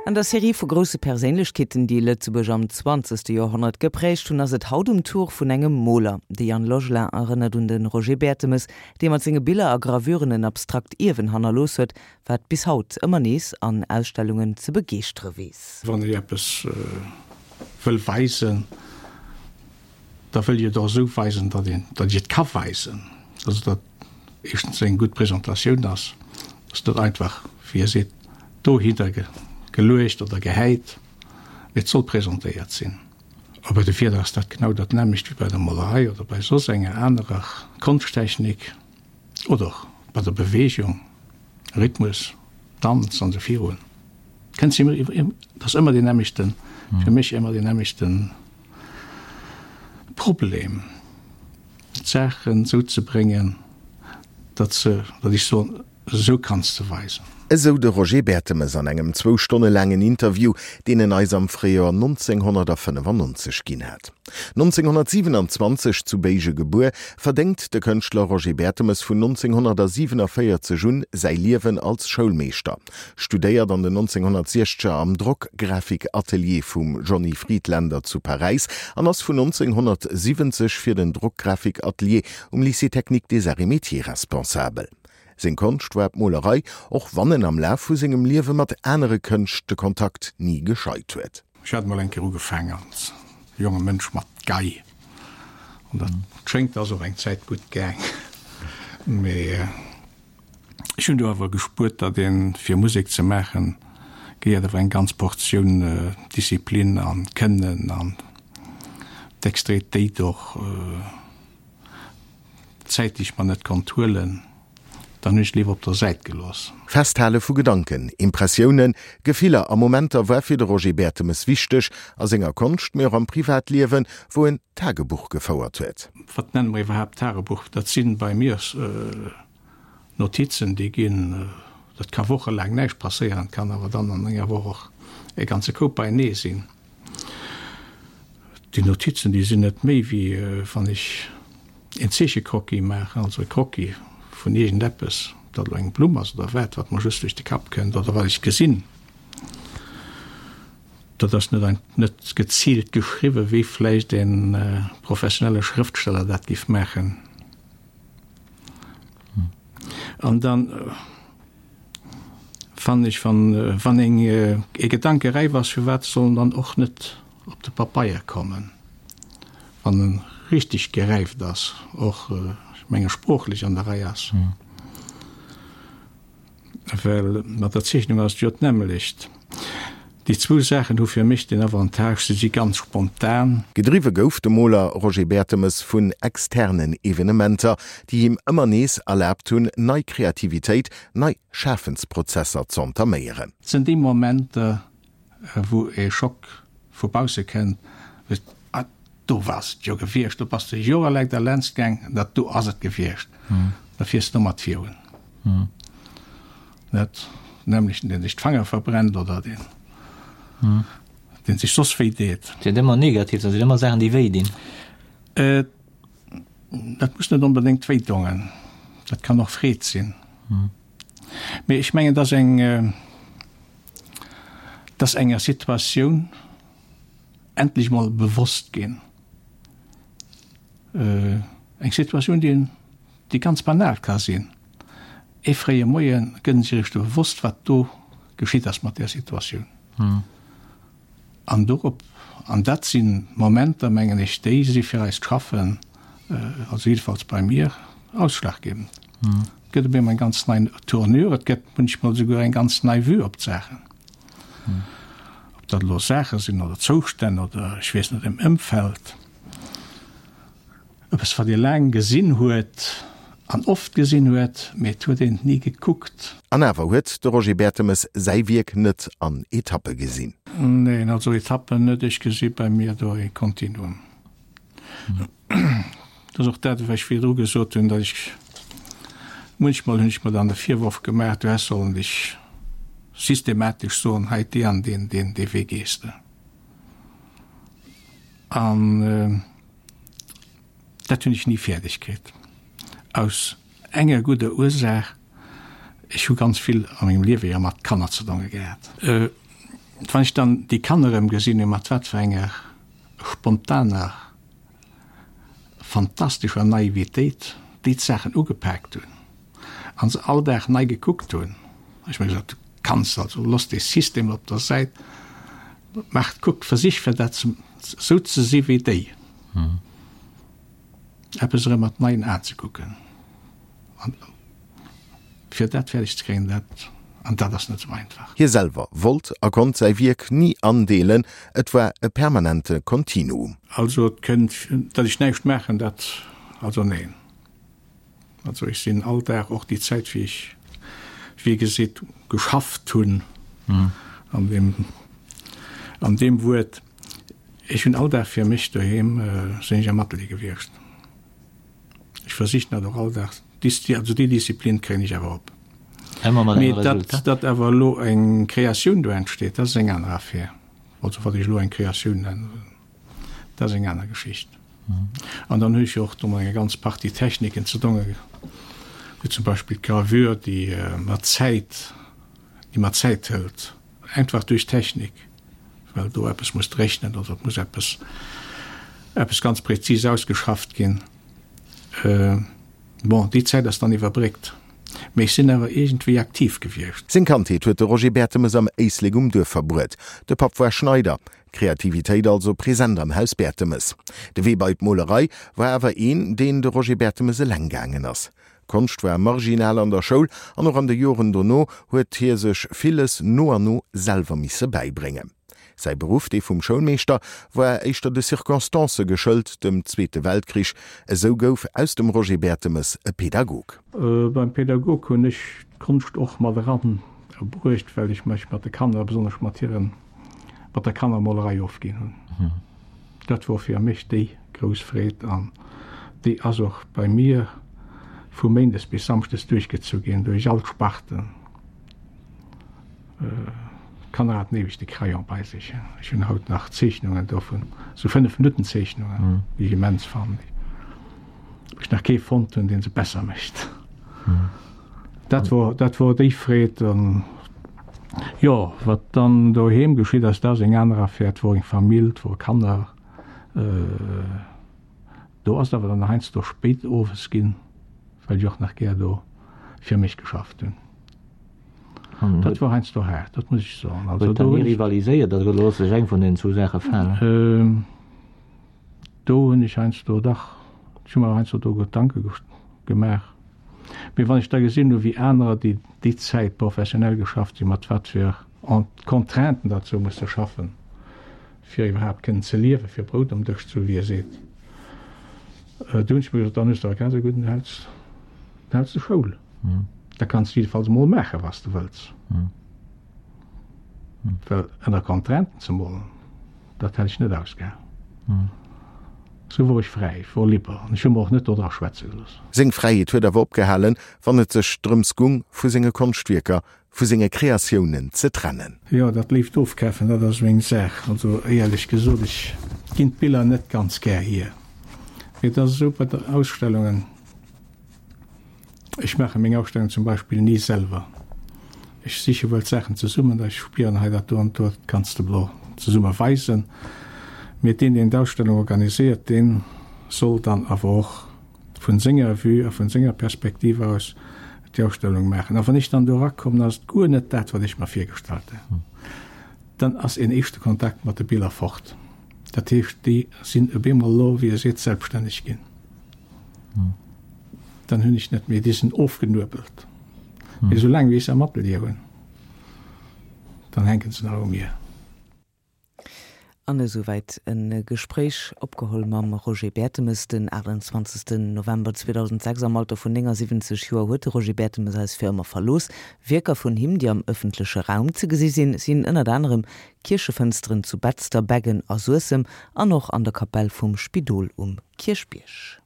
An der Serie vu grousse Perséinlechkeeten, déi Lëtzebuerg am zwanzegste Joerhonnert geprägt hunn, ass et haut um Tour vun engem Moler. De Yann Logelin erënnert un de Roger Bertemes, dee mat senge Biller a Gravuren en abstrakt Ierwen hannerlooss huet, wat bis haut ëmmer nees an Ausstellungen ze begeeschtere weess. Wann ee eppes wëll weisen, da wëll ech et och esou weisen, datt een, datt ech et ka weisen. Also datt éischtens eng gutt Presentatioun ass, ass net einfach, wéi e seet, dohinner geluecht oder gehäit, mee et soll presentéiert sinn. A bei de Wierder ass dat genau dat nämmlecht wéi bei der Molerei oder bei soss enger anerer Konschttechnik oder och bei der Beweegung, Rhythmus, Danz an esou virun. Kënnt se ëmmer, et ass ëmmer deen nämmlechten, fir mech ëmmer deen nämmlechten Problem, d'Saachen esou ze bréngen, datt se, datt ech soen, Esou kanns de weisen. Esou de Roger Bertemes an engem zwou Stonne laangen Interview, deen en eis am Fréijoer 1995 ginn hat. 1927 zu Béige gebuer, verdéngt de Kënschtler Roger Bertemes vun 1947 un säi Liewen als Schoulmeeschter, studéiert an den 1960er am Drockgrafikatelier vum Johnny Friedländer zu Paräis an ass vun 1970 fir den Drockgrafikatelier um Lycée technique des Arts et Métiers responsabel. Seng Konscht war d'Molerei, och wann en am Laf vu sengem Liewe mat anere Kënscht de Kontakt ni gescheit huet. Ech hat mol eng Kéier ugefaang als jonge Mënsch mat Gei, an dat schéngt ass och eng Zäit gutt gaang, mee ech hunn do awer gespuert, datt een fir Musek ze maachen gehéiert awer eng ganz Portioun Disziplin an Kënnen an Dextéritéit och. D'Zäit déi ech mer net konnt huelen, dann hunn ech léiwer op der Säit gelooss. Festhale vu Gedanken, Impressiounen, Gefiller a Momenter war fir de Roger Bertemes wichteg, a senger Konscht, mee och am Privatliewen, wou en Tagebuch gefouert huet. Wat nenne mer iwwerhaapt Tagebuch? Dat si bei mir Notizen, déi ginn, dat ka wochelaang näischt passéieren, et kann awer dann an enger Woch och e ganze Koup beienee sinn. Déi Notizen, déi sinn net méi wéi wann ech een Zeechecroquis maachen, also e Croquis vun iergendeppes, ob dat elo eng Blumm ass oder wat, wat mer just duerch de Kapp kënnt oder wat ech gesinn. Dat ass net ein, net geziilt geschriwwen, wéi vläicht e professionelle Schrëftsteller dat géif maachen. An dann fannen ech, wann, wann eng e Gedanke räif ass, firwat soll en dann och net op de Papeier kommen, wann en richtig geräift ass, och, ech menge sproochlech an der Rei ass. Well mat der Zeechnung ass et jo d'nämmlecht. Déi zwou Saachen hu fir mech den Avantage, se si ganz spontan. Gedriwwe gouf de Moler Roger Bertemes vun externen Evenementer, déi him ëmmer nees erlaabt hunn, nei Kreativitéit, nei Schafensprozesser z'entaméieren. Et sinn déi Momenter, wou e Schock vu bausse kënnt, wou s ah, do war et jo gewiescht, do bass de jorelaang derlaanscht gaang, dat do ass et gewiescht, da fiers de domat virun. Net nämlechten, deen sech d'Fanger verbrennt oder deen, deen sech soss wéi deet. Et sinn ëmmer negativ, dat sinn ëmmer Saachen, déi wéi dinn. Dat muss net onbedéngt wéi dongen, dat kann och Freed sinn. Mee ech mengen, dass eng, dass enger Situatioun endlech mol bewosst ginn, eng Situatioun, déi, déi ganz banal ka sinn, ee fréie Moie gëtt en sech eréischt bewosst, wat do geschitt ass mat där Situatioun. An dorop, an dat si Momenter, mengen ech, déi si fir eist Schaffen, also jiddefalls bei mir, ausschlaggebend. Et gëtt op eemol eng ganz nei Tournure, et gëtt munchmol esouguer eng ganz nei Vue op d'Saachen. Ob dat elo Saache sinn oder Zoustänn oder ech weess net, em Ëmfeld. Eppes wat ee laang gesinn huet an oft gesinn huet, mee et huet een et ni gekuckt. An awer huet de Roger Bertemes säi Wierk net an Etappe gesinn. Neen, also Etappen net. Ech gesi bei mir do ee Kontinuum. Dat ass och dat, wat ech virdru gesot hunn, datt ech, munchmol hunn ech mer dann de Virworf gemaach, du häss sollen dech systematesch soen, hei dee an deen, deen, dee Wee gees de. An dat hunn ech ni fäerdeg kritt. Aus enger gudder Ursaach, ech hu ganz vill a mengem Liewe jo mat Kanner ze donge gehat. Wann ech dann déi Kanner erëm gesinn hunn, mat wat fir enger spontaner, fantastescher Naivitéit déi d'Saachen ugepaakt hunn a se all Dag nei gekuckt hunn, hu ech mer gesot, du kanns also, looss dee System op der Säit, maach, kuck, versich fir dat esou ze si wéi déi. Eppes erëm mat neien Aen ze kucken. An fir dat fäerdeg ze kréien, dat, an dat ass net esou einfach. Hie selwer wollt a konnt säi Wierk ni andeelen, et war e permanente Kontinuum. Also et kënnt, datt ech näischt maachen, dat, also neen. Also ech sinn all Dag, och déi Zäit wéi ech, wéi geseet, geschafft hunn, an deem, an deem Wuert, ech hunn all Dag fir mech doheem, sinn ech am Atelier gewiescht. Ech versichen dat och all Dag, also déi Disziplin kréien ech awer op. Mee datt, datt awer elo eng Kreatioun do entsteet, dat ass eng aner Affär. Also wat ech elo eng Kreatioun nennen. Dat ass eng aner Geschicht. An dann hu ech jo och do mat enger ganz Partie Techniken ze donge, wéi zum Beispill d'Gravure, déi mer Zäit, déi mer Zäit hëlt, einfach duerch d'Technik, well do eppes muss dréchnen oder et muss eppes, eppes ganz präzis ausgeschafft ginn. Bon, déi Zäit ass dann iwwerbréckt, mee ech sinn awer iergendwéi aktiv gewiescht. Seng Kandheet huet de Roger Bertemes am Éislek um Duerf verbruet. De Papp war Schneider, Kreativitéit also present am Haus Bertemes. De Wee bei d'Molerei war awer een, deen de Roger Bertemes eleng gaangen ass. Konscht war marginal an der Schoul an och an de Joren dono huet hie sech villes no an no selwer misse bäibréngen. Säi Beruff, dee vum Schoulmeeschter, war éischter de Circonstancë geschëlt, dem Zweete Weltkrich. Esou gouf aus dem Roger Bertemes e Pedagog. Beim Pedagog hunn ech d'Konscht och mat eran bruecht, well ech mech mat de Kanner, besonnesch mat hiren mat der Kannermolerei ofginn hunn. Dat wor fir mech déi grouss Freed an déi ass och bei mir vu méindes bis samschdes duerchgezu ginn, duerch all d'Sparten. D'Kanner haten eweg de Crayon bei sech. Ech hunn haut nach Zeechnungen dovun, sou 5 Minutten Zeechnungen, déi ech immens fannen, wou ech nach kee fonnt hunn, dee se besser mécht. Dat wor, dat wor déi Freed. An jo, wat dann doheem geschitt ass, dat ass eng aner Affär. Et wor eng Famill, et wore Kanner. Do ass et awer dann heiansdo spéit owes ginn, well ech och nach gär do fir mech geschafft hunn. Dat wor heiansdo haart, dat muss ech soen. Also do hunn ech. Rivaliséiert oder looss sech eng vun den zwou Saache falen? Do hunn ech heiansdo dach, ech hu mer heiansdo do Gedanke gemaach. Mee wann ech da gesinn hu wéi anerer, déi déi Zäit professionell geschafft hunn, mat wat fir Contrainten datt se hu musse schaffen, fir iwwerhaapt kënnen ze liewen, fir Brout um Dësch ze hu wéi ee seet, do hunn ech mer gesot, dann hues de awer grad esou gutt, dann häls, dann häls de Schoul. Da kanns de jiddefalls emol maachen, wat s de wëlls. Well ënner Contrainten ze molen, dat hätt ech net ausgehalen. Sou wor ech fräi, ech wor liber an ech hu mer och net dodra schwätze gelooss. Seng Fräiheet huet awer opgehalen, wann et sech drëms gung, vu senge Konschtwierker, vu senge Kreatiounen ze trennen. Jo, dat léift Ofkafen, dat ass meng Saach. Also éierlech gesot, ech ginn d'Biller net ganz gär hier. Mee et ass esou bei den Ausstellungen, Ech maache meng Ausstellung zum Beispill ni selwer. Ech siche wuel d'Saachen zesummen, da ech spieren, hei dat do an do kanns de blo zesumme weisen. Mee deen, deen d'Ausstellung organiséiert, dee soll dann awer och vun senger Vue a vun senger Perspektiv aus déi Ausstellung maachen. A wann ech dann do erakommen, ass et guer net dat, wat ech mer virgestallt hunn. Dann ass een éischte Kontakt mat de Biller fort. Dat heescht, déi sinn op eemol elo, wéi ee seet, selbststänneg ginn. Dann hunn ech net méi, déi sinn ofgenuebelt. Mee soulaang wéi ech se am Atelier hunn, dann hänke se nach u mir. An esouwäit e Gespréich, opgeholl mam Roger Bertemes den 28 November 2006. Am Alter vun 79 Joer huet de Roger Bertemes eis fir ëmmer verlooss. Wierker vun him, déi am ëffentleche Raum ze gesi sinn, sinn ënnert anerem Kierchefënsteren zu Betzder, Beggen a Suessem an och an der Kapell vum Spidol um Kierchbierg.